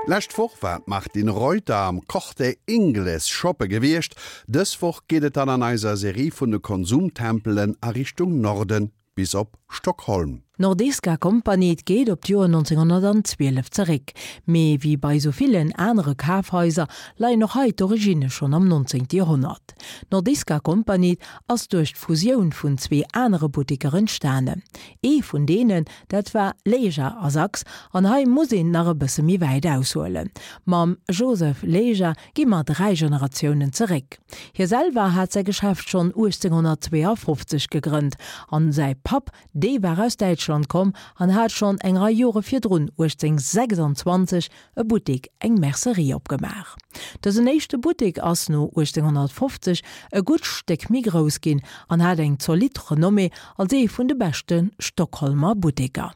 D'lescht Woch war d'Martine Reuter am Corte Inglés shoppe gewiescht. Dës Woch geet et dann an eiser Serie vun de Konsumtempelen a Richtung Norden bis op Stockholm. D'Nordiska Kompaniet geet op d'Joer 1912 zeréck, mee wéi bei sou villen anere Kafhaiser leien och hei d'Originne schonn am 19. Joerhonnert. D'Nordiska Kompaniet ass duerch d'Fusioun vun zwee anere Butteker entstanen. Ee vun deenen, dat war Leja a Sachs, an hei muss een nach e bësse méi wäit aushuelen. Mam Joseph Leja gi mer 3 Generatiounen zeréck. Hie selwer hat säi Geschäft schonn 1852 gegrënnt an säi Papp, dee war aus Däitschland komm an hat schonn eng Rei Jore virdrun, 1826, e Buttek, eng Mercerie opgemaach. Dësen éischte Buttek ass no 1850 e gutt Stéck méi grouss ginn an hat eng zolidd Renommée als ee vun de beschte Stockholmer Butteker.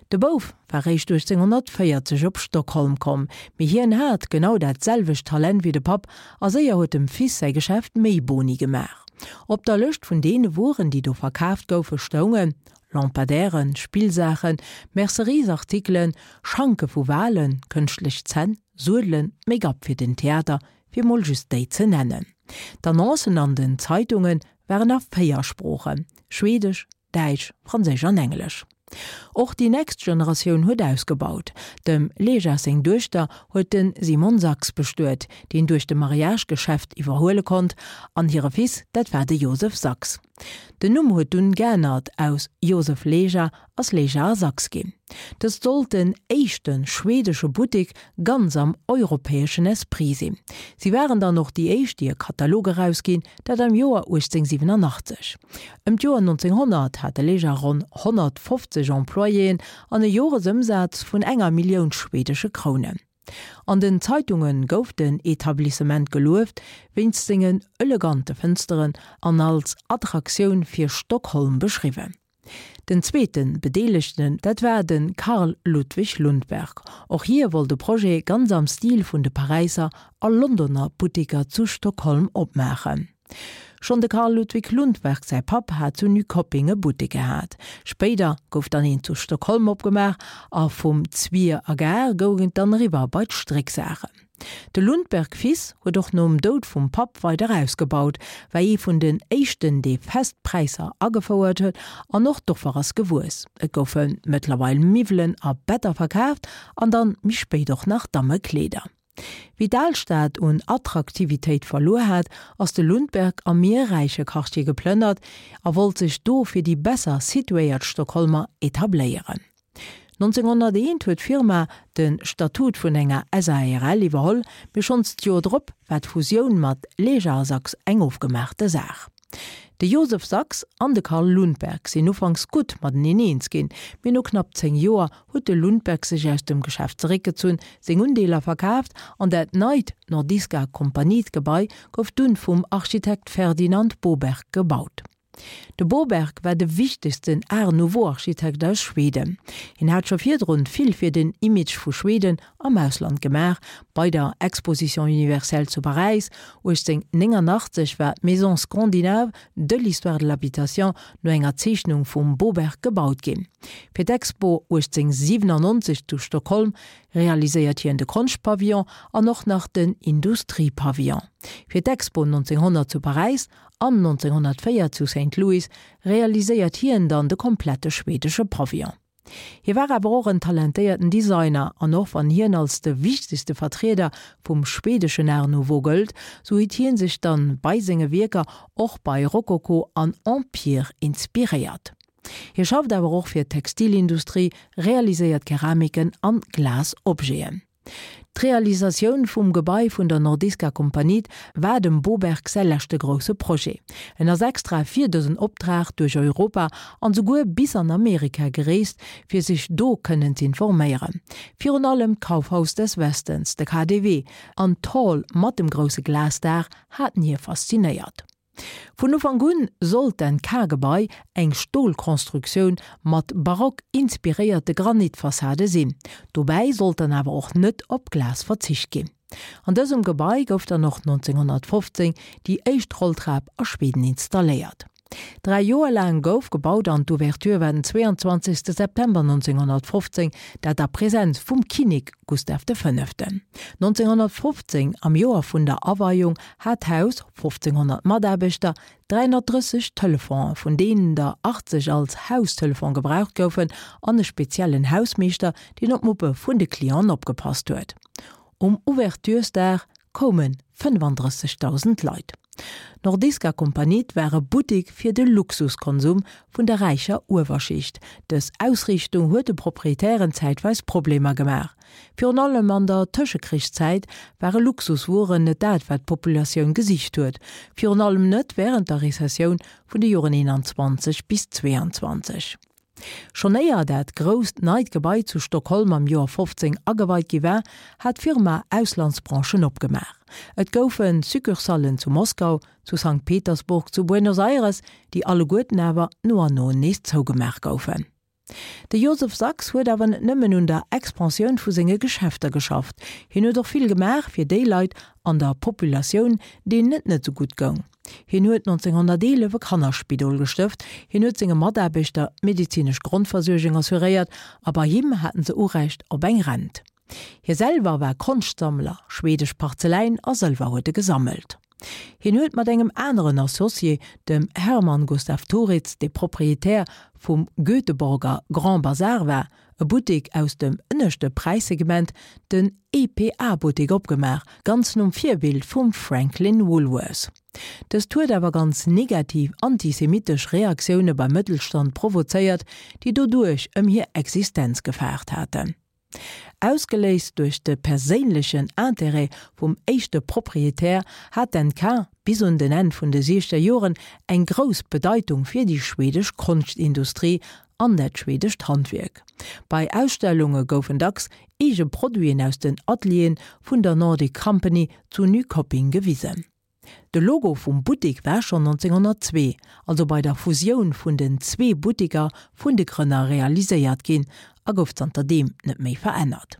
De Bouf war réischt 1840 op Stockholm komm, mee hien hat genau dat selwecht Talent wéi de Papp a séier huet dem Fils säi Geschäft méi Boni gemaach. Op der Lëscht vun deene Wueren, déi do verkaaft goufe stoungen, Lampadaires, Spillsaachen, Merceriesartikelen, Schanke vu Walen, kënschtlech Zänn, Suedelen, Make-up fir den Theater, fir mol just déi ze nennen. D'Annoncen an den Zeitunge waren a 4 Sproochen, Schwedesch, Däitsch, Franséisch an Englesch. Och déi nächst Generatioun huet ausgebaut. Dem Lejas seng Duechter huet de Simon Sachs bestuet, deen duerch de Mariage d'Geschäft iwwerhuele konnt, an hire Fils, dat war de Josef Sachs. Den Numm huet dunn geännert, aus Josef Leja ass Leja a Sachs ginn. Dëst sollt den éischte schwedesche Buttek ganz am europäeschen Esprit sinn. Si waren dann och déi éischt déi e Katalog erausginn, dat am Joer 1887. Ëm d'Joer 1900 hat de Leja ronn 150 Employéen an e Joresëmsaz vun enger Millioun schwedesche Krounen. An den Zeitunge gouf den Etablissement gelueft wéinst sengen elegante Fënsteren an als Attraktioun fir Stockholm beschriwwen. Den zweete Bedeelegten, dat war de Carl Ludwig Lundberg. Och hie wollt e Projet ganz am Stil vun de Paräisser a Londoner Butteker zu Stockholm opmaachen. Schonn de Carl Ludvig Lundberg säi Papp hat zu Nyköping e Buttek gehat. Spéider gouf dann een zu Stockholm opgemaach a vum Zwier a Gare goung et dann eriwwer bei d'Strécksaachen. De Lundberg Fils huet och nom Doud vum Papp weider ausgebaut, war ee vun den éischten dee fest Präisser agefouert huet an och d'Offer ass gewuess. Et goufe mëttlerweil Miwwelen a Better verkaaft an dann méi spéit och nach Dammekleeder. Wéi d'Alstad un Attraktivitéit verluer hat, ass de Lundberg am méi räiche Quartier geplënnert a wollt sech do fir déi besser situéiert Stockholmer etabléieren. 1901 huet d'Firma de Statut vun enger SARL iwwerholl, mee schonns d'Joer drop war d'Fusioun mat Leja a Sachs eng ofgemaachte Saach. De Josef Sachs an de Carl Lundberg sinn ufanks gutt mateneen eens ginn, mee no knapp 10 Joer huet de Lundberg sech aus dem Geschäft zeréckgezunn, seng Undeeler verkaaft an dat neit Nordiska Kompaniet-Gebai gouf dunn vum Architekt Ferdinand Boberg gebaut. De Boberg war de wichtegsten Art-Nouveau-Architekt aus Schweden. Hien hat scho virdrun vill fir den Image vu Schweden am Ausland gemaach, bei der Exposition universelle zu Paräis 1889 war d'Maison scandinave de l'histoire de l'habitation no enger Zeechnung vum Boberg gebaut ginn. Fir d'Expo 1897 zu Stockholm realiséiert hien de Konschtpavillon an och nach den Industriepavillon. Fir d'Expo 1900 zu Paräis an 1904 zu Saint Louis realiséiert hien dann de komplette schwedesche Pavillon. Hie war awer och en talentéierten Designer, an och wann hien als de wichtegste Vertrieder vum schwedeschen Art Nouveau gëllt, sou huet hien sech dann bei senge Wierker och bei Rokoko an Empire inspiréiert. Hie schafft awer och fir d'Textilindustrie, realiséiert Keramiken an Glasobjeten. D'Realisatioun vum Gebai vun der Nordiska Kompaniet war dem Boberg säi leschte grousse Projet. En ass extra fir dësen Optrag duerch Europa an souguer bis an Amerika gereest, fir sech do kënnen z'informéieren. Virun allem d'Kaufhaus des Westens, de KaDeWe, an d'Hall mat dem grousse Glasdaach haten hie faszinéiert. Vun Ufank un sollt d'NK-Gebai eng Stolkonstruktioun mat barock inspiréierte Granitfassade sinn. Dobäi sollt dann awer och net op Glas verzicht ginn. An dësem Gebai gouf dann och 1915 déi éischt Rolltrap a Schweden installéiert. Dräi Joer laang gouf gebaut an d'Ouverture war den 22 September 1915, dat a Presenz vum Kinnek Gustav de Fënneften. 1915, am Joer vun der Aweiung, hat d'Haus 1.500 Mataarbechter, 330 Telefonen, vun deenen der 80 als Haustelefon gebraucht goufen, an e speziellen Hausmeeschter, deen op d'Muppe vun de Clienten opgepasst huet. Um Ouverturesdag koume 35.000 Leit. D'Nordiska Kompaniet war e Buttek fir de Luxuskonsum vun der räicher Uewerschicht. Dës Ausriichtung huet de Proprietären zäitweis Problemer gemaach. Virun allem an der Tëschekrichszäit ware Luxuswueren net dat, wat d'Populatioun gesicht huet, virun allem net wärend der Rezessioun vun de Joren 21 bis 22. Schonn éier dat grousst neit Gebai zu Stockholm am Joer 15 ageweit gi war, hat d'Firma Auslandsbranchen opgemaach. Et goufe Succursallen zu Moskau, zu Sankt Petersburg, zu Buenos Aires, déi alleguerten awer no an no nees zougemaach goufen. De Joseph Sachs huet awer net nëmmen un der Expansioun vu senge Geschäfter geschafft, hien huet och vill gemaach fir déi Leit an der Populatioun, deenen et net sou gutt goung. Hien huet 1911 e Kannerspidol gestëft, hien huet senge Mataarbechter d'medezinesch Grondversuergung assuréiert a bei him haten se Urecht op eng Rent. Hie selwer war Konschtsammler, schwedesch Parzeläin a Sëlwer huet e gesammelt. Hien huet mat engem aneren Associé, dem Herman Gustaf Thoritz, dee Proprietär vum Göteborger Grand Bazar war, e Buttek aus dem ënneschte Präissegment, den EPA-Buttek opgemaach, ganz nom Virbild vum Franklin Woolworth. Dëst huet awer ganz negativ antisemitesch Reaktioune beim Mëttelstand provozéiert, déi doduerch ëm hir Existenz gefaart haten. Ausgeléist duerch de perséinlechen Interêt vum éischte Proprietär hat d'NK bis un den Enn vun de siechzeger Joren eng grouss Bedeitung fir déi schwedesch Konschtindustrie an dat schwedescht Handwierk. Bei Ausstellunge goufen dacks eege Produiten aus den Atelieren vun der Nordic Company zu Nyköping gewisen. De Logo vum Buttek war schonn 1902, also bei der Fusioun vun den zwee Butteker vun de Grënner realiséiert ginn a gouf zanter deem net méi verännert.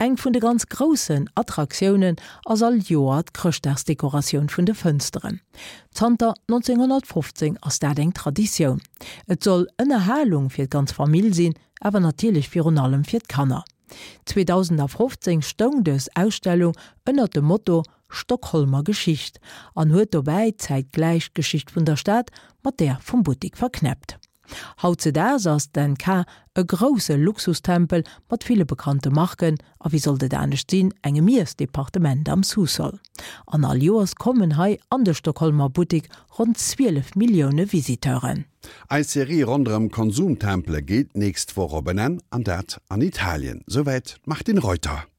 Eng vun de ganz groussen Attraktiounen ass all Joer d'Chrëschtdagsdekoratioun vun de Fënsteren. Zanter 1915 ass dat eng Traditioun. Et soll Ënnerhalung fir d'ganz Famill sinn, awer natierlech virun allem fir d'Kanner. 2015 stoung dës Ausstellung ënnert dem Motto Stockholmer Geschicht an huet dobäi zäitgläich d'Geschicht vun der Stad mat där vum Buttik verknäppt. Hautzedaags ass d'NK e grousse Luxustempel mat ville bekannte Marken a wéi sollt et anescht sinn, engem Iessdepartement am Sous-sol. An all Joers kommen hei an de Stockholmer Buttik ronn 12 Millioune Visiteuren. Eis Serie ronderëm Konsumtempele geet d'nächst Woch op en Enn, an dat an Italien. Souwäit d'Martine Reuter.